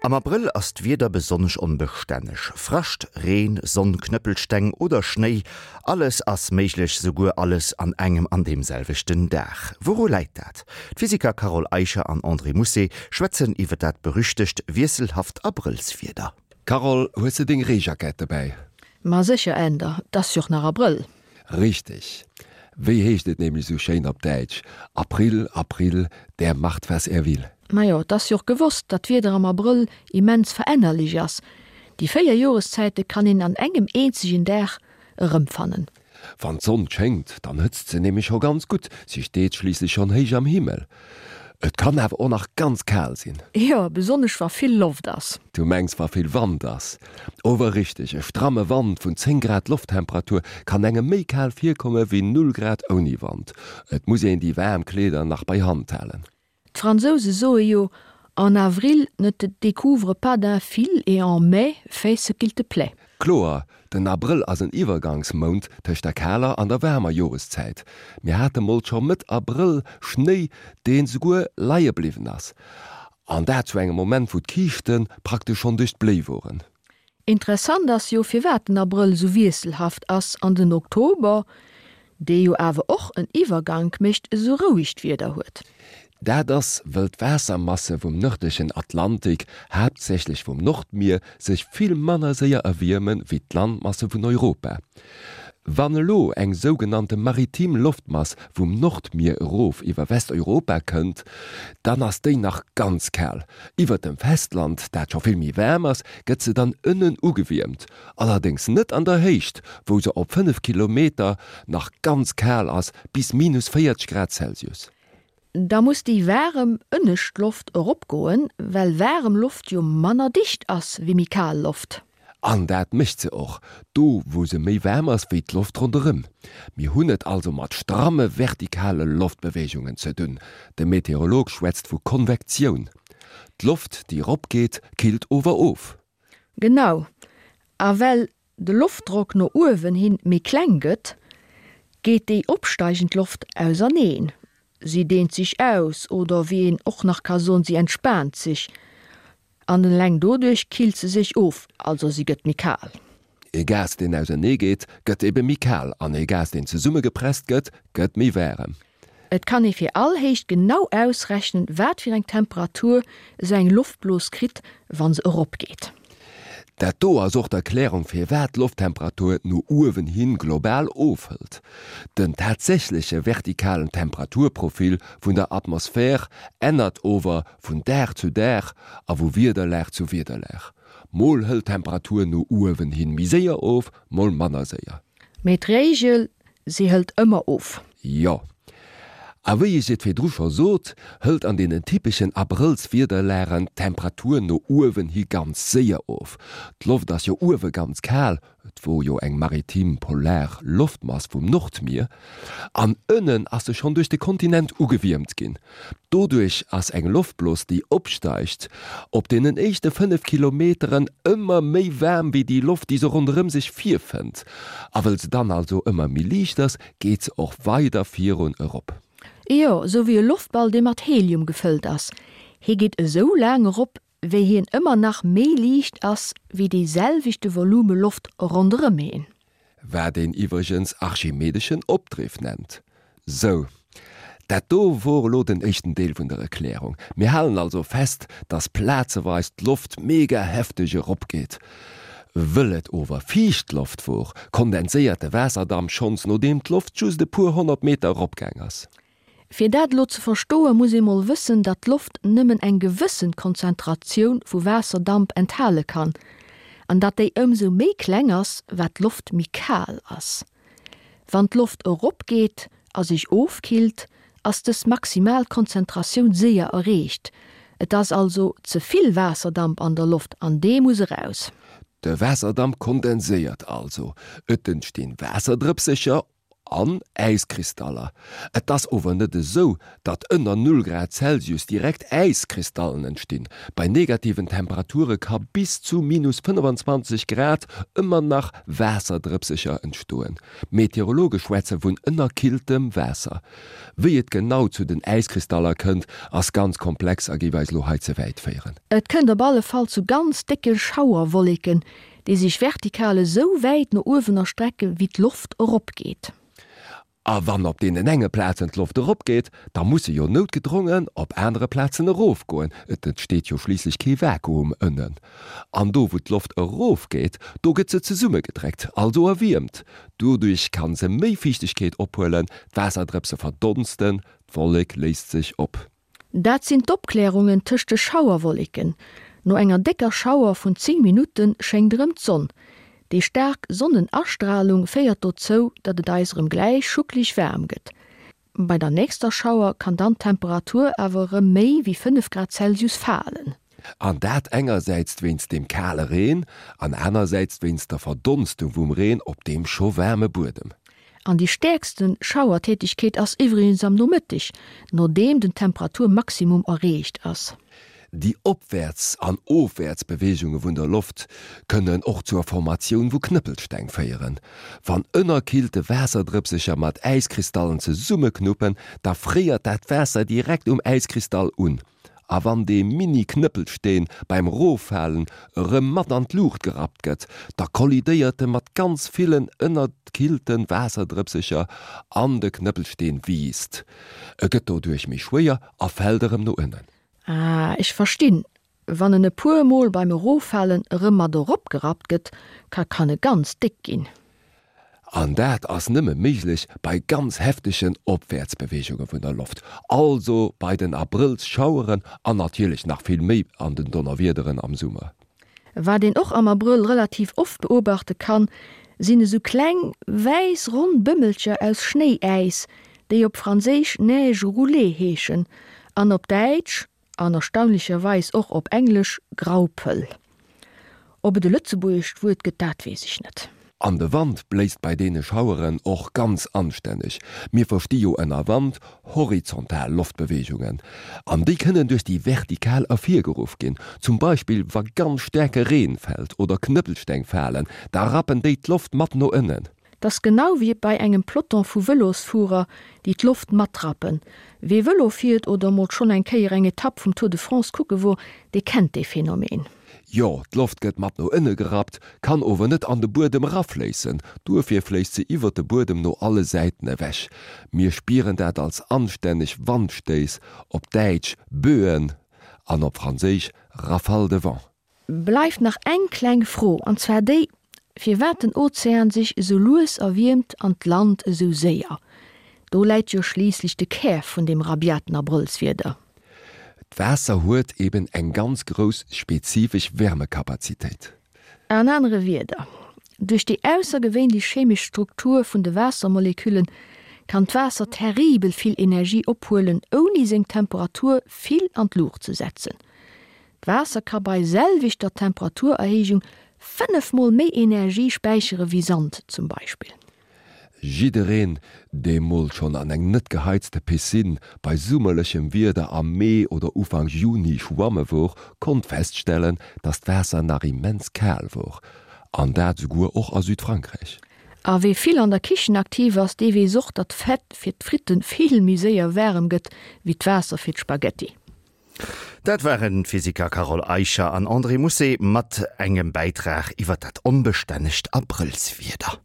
Am Abrëll ass d'Wieder besonnesch onbestänneg. Frascht, Reen, Sonn, Knëppelsteng oder Schnéi, alles ass méiglech, souguer alles an engem an deem selwechten Dag. Wouru läit dat? D'Physiker Carole Eicher an André Mousset schwätzen iwwer dat berüchtegt wiesselhaft Abrëllswieder. Carole, hues de deng Reejackett dobäi? Ma sécher, Änder, 't ass jo och nach Abrëll. Richteg. Wéi heescht et nämlech sou schéin op Däitsch, April, April, der macht was er will. Majo, et ass jo och gewosst, datt d'Wieder am Abrëll immens verännerlech ass. Déi 4 Joreszäite kann een an engem eenzegen Dag erëmfannen. Wann d'Sonn schéngt, dann hëtzt se nämlech scho ganz gutt, si steet schliisslech schonn héich am Himmel. Et kann awer och nach ganz kal sinn. Jo, besonnesch wa vill Loft ass. Du mengs wa vill Wand ass? Ower richteg, e stramme Wand vun 10 Grad Lofttemperatur kann engem méi kal virkomme wéi 0 Grad ouni Wand. Et muss een déi waarm Kleeder nach bei Hand halen. D'Fransouse soe jo, En avril ne te découvre pas d'un fil et en mai fais ce qu'il te plaît. Kloer, den Abrëll ass en Iwwergangsmount tëscht der kaler an der waarmer Joreszäit. Mir hate mol scho Mëtt Abrëll Schnéi, deen souguer leie bliwwen ass. An dat zu engem Moment, wou d'Kiischte praktesch schonn duerch d'Bléi woren. Interessant ass jo firwat den Abrëll esou wiesselhaft ass an den Oktober, dee jo awer och en Iwwergank mécht, esou rouegt Wieder huet. Dat ass, wëll d'Waassermasse vum nërdlechen Atlantik, haaptsächlech vum Nordmier, sech vill manner séier erwierme wéi d'Landmasse vun Europa. Wann elo eng sougenannte maritim Loftmass vum Nordmier erof iwwer Westeuropa kënnt, dann ass déi nach ganz kal. Iwwert dem Festland, dat scho vill méi waarm ass, gëtt se dann ënnen ugewiermt, allerdéngs net an der Héicht, wou se op 5 Kilometer nach ganz kal ass, bis minus 40 Grad Celsius. Da muss déi waarem ënnescht Loft eropgoen, well waarem Loft jo manner dicht ass wéi méi kal Loft. An dat mécht se och, do wou se méi waarm ass wéi d'Loft ronderëm. Mir hunn et also mat stramme vertikale Loftbeweegungen ze dunn, de Meteorolog schwätzt vu Konvektioun. D'Loft déi eropgeet, killt ower of. Genau, a well de Loftdrock no uewen hin méi kleng gëtt, geet déi opsteigend Loft auserneen, si deent sech aus oder wéi een och nach ka soen, si entspaant sech an eleng doduerch killt se sech of, also si gëtt méi kal. Ee Gas deen ausernee geet, gëtt ebe méi kal an ee Gas deen zesummegepresst gëtt, gëtt méi waarem. Et kann ee fir all Héicht genau ausrechnen, wat fir eng Temperatur esou eng Loftblos kritt, wa se eropgeet. Dat do ass och d'Erklärung firwat d'Lofttemperatur no uewen hin global ofhëlt. Den tatsächleche vertikalen Temperaturprofil vun der Atmosphär ännert ower vun Dag zu Dag a vu Wiederlag zu Wiederlag. Mol hëlt d'Temperatur no uewen hin méi séier of, mol manner séier. Mee d'Regel, se hëlt ëmmer of. Jo. A wéi ech et virdru scho sot, hëlt an deenen typeschen Abrëllswiederlagen d'Temperatur no uewen hi ganz séier of. D'Loft ass jo uewe ganz kal, et wor jo eng maritim polar Loftmass vum Nordmier, an ënnen ass se schonn duerch de Kontinent ugewiermt ginn. Doduerch ass eng Loftblos, déi opsteigt, op deenen éischte 5 Kilometeren ëmmer méi waarm wéi déi Loft, déi se ronderëm sech virfënnt. A wëll se dann also ëmmer méi liicht ass, geet se och weider virun erop. Jo, esou wéi e Loftball, dee mat Helium gefëllt ass. Hie geet esou laang erop, wéi hien ëmmer nach méi liicht ass wéi dee selwechte Volume Loft ronderëm hien. Wat een iwwregens archimedeschen Opdriff nennt. Sou, dat do wor elo den éischten Deel vun der Erklärung. Mir halen also fest, dass plazeweis d'Loft mega hefteg eropgeet. Wëll et ower fiicht Loft wor, kondenséiert de Waasserdamp schonns nodeem d'Loft just e puer 100 Meter eropgaang ass. Fir dat elo ze verstoen, muss ee mol wëssen, datt d'Loft nëmmen eng gewëssen Konzentratioun vu Waasserdamp enthale kann, an datt déi ëmsou méi kleng ass, wat d'Loft méi kal ass. Wann d'Loft eropgeet a sech ofkillt, ass dës maximal Konzentratioun séier erreecht. Et ass also ze vill Waasserdamp an der Loft an dee muss eraus. De Waasserdamp kondenséiert also, et entstinn Waasserdrëpsecher. An Äiskristaller. Et ass ower net esou, datt ënner Null Grad Celsius direkt Äiskristallen entstinn. Bei negativen Temperature ka bis zu minus 25 Grad ëmmer nach Waasserdrëpsecher entstoen. Meteorologe schwätze vun ënnerkilltem Waasser. Wéi et genau zu den Äiskristaller kënnt, ass ganz komplex a géif eis elo hei ze wäit féieren. Et kënnt op alle Fall zu ganz décke Schauerwolleken, déi sech vertikal esou wäit no uewen erstrecke wéi d'Loft eropgeet. A wann op deenen enge Plazen d'Loft eropgeet, da muss se jo noutgedrongen op anere Plazen erofgoen, et entsteet jo schliisslech kee Vakuum ënnen. An do wou d'Loft erofgeet, do gëtt se zesummegedréckt, also erwiermt. Doduerch kann se méi Fiichtegkeet ophuelen, d'Waasserdrëpse verdonsten, d'Wollek léist sech op. Dat sinn d'Opklärungen tëscht de Schauerwolleken. No enger décker Schauer vun 10 Minutte schéngt erëm d'Sonn. Déi staark Sonnenastralung féiert dozou, datt et eis erëm gläich schuckleg waarm gëtt. Bei der nächster Schauer kann dann d'Temperatur awer erëm méi wéi 5 Grad Celsius falen. An dat engersäits wéinst dem kale Reen an anersäits wéinst der Verdonstung vum Reen op deem scho waarme Buedem. An déi stäerkste Schauertätegkeet ass iwwregens am Nomëtteg, nodeem den Temperaturmaximum erreecht ass. Déi Opwäerts an Ofwäertsbeweegunge vun der Loft kënnen och zur Formatioun vu Knëppelsteng féieren. Wann ënnerkillte Waasserdrëpsecher mat Äiskristallen zesummeknuppen, da fréiert dat Waasser direkt um Äiskristall un. A wann dee Mini-Knëppelsteen beim Roffalen erëm mat an d'Luucht gerappt gëtt, da kollidéiert e mat ganz villen ënnerkillte Waasserdrëpsecher an de Knëppelsteen wiisst. E gëtt doduerch méi schwéier a fält erëm no ënnen. Ah, ech verstinn. Wann en e puer Mol beim Eroffalen erëm mat eropgerappt gëtt, ka kann e ganz déck ginn. An dat ass nëmme méiglech bei ganz heftegen Opwäertsbeweegunge vun der Loft, also bei den Abrëllsschaueren an natierlech nach vill méi an den Donnerwiederen am Summer. Wat een och am Abrëll relativ oft beobachte kann, sinn esou kleng, wäiss ronn Bëmmelcher aus Schnéiäis, déi op Franséisch Neige roulée heeschen an op Däitsch, An erstaunlecherweis och op Englesch, Graupel. Ob et e lëtzebuergescht Wuert gëtt, dat weess ech net. An de Wand bléist bei deene Schaueren och ganz anstänneg. Mir versti jo ënner Wand horizontal Loftbeweegungen, an déi kënnen duerch déi vertikal ervirgeruff ginn. Zum Beispill wa ganz staarke Reen fält oder Knëppelsteng falen, da rappen déi d'Loft mat no ënnen. T'ass genau wéi bei engem Peloton vu Vëlosfuerer, déi d'Loft matrappen. Wee Vëlo fiert oder mol schonn eng Kéier eng Etapp vum Tour de France kucke wor, dee kennt dee Phänomen. Jo, d'Loft gëtt mat no ënne gerappt, kann ower net an de Buedem erafléissen. Duerfir fléisst se iwwert de Buedem no alle Säiten ewech. Mir spieren dat als anstänneg Wandstéiss, op Däitsch Böen an op Franséisch Rafale de vent. Bleift nach eng kleng Fro, an zwar déi, firwat den Ozean sech esou lues erwiermt an d'Land esou séier. Do läit jo schliisslech de Kär vun deem rabiaten Abrëllswieder. D'Waasser huet eben eng ganz grouss spezifesch Wärmekapazitéit. An anere Wierder, Duerch déi aussergewéinlech chemesch Struktur vun de Waassermoleküllen kann d'Waasser terribel vill Energie ophuelen, ouni seng Temperatur vill an d'Luucht ze setzen. D'Waasser ka bei selwechter Temperaturerhéijung 5 mol méi Energie späichere wéi Sand zum Beispill. Jiddereen, dee mol schonn an eng net geheizte Piscine bei summerlechem Wieder am Mee oder Ufank Juni schwamme wor, konnt feststellen, dass d'Waasser nach immens kal wor. An dat esouguer och a Südfrankräich. A wee vill an der Kichen aktiv ass, dee weess och, datt d'Fett fir d'Fritten vill méi séier waarem gëtt wéi d'Waasser fir d'Spaghetti. Dat waren d'Physiker Carole Eicher an André Mousset mat engem Bäitrag iwwer dat onbestännegt Abrëllswieder.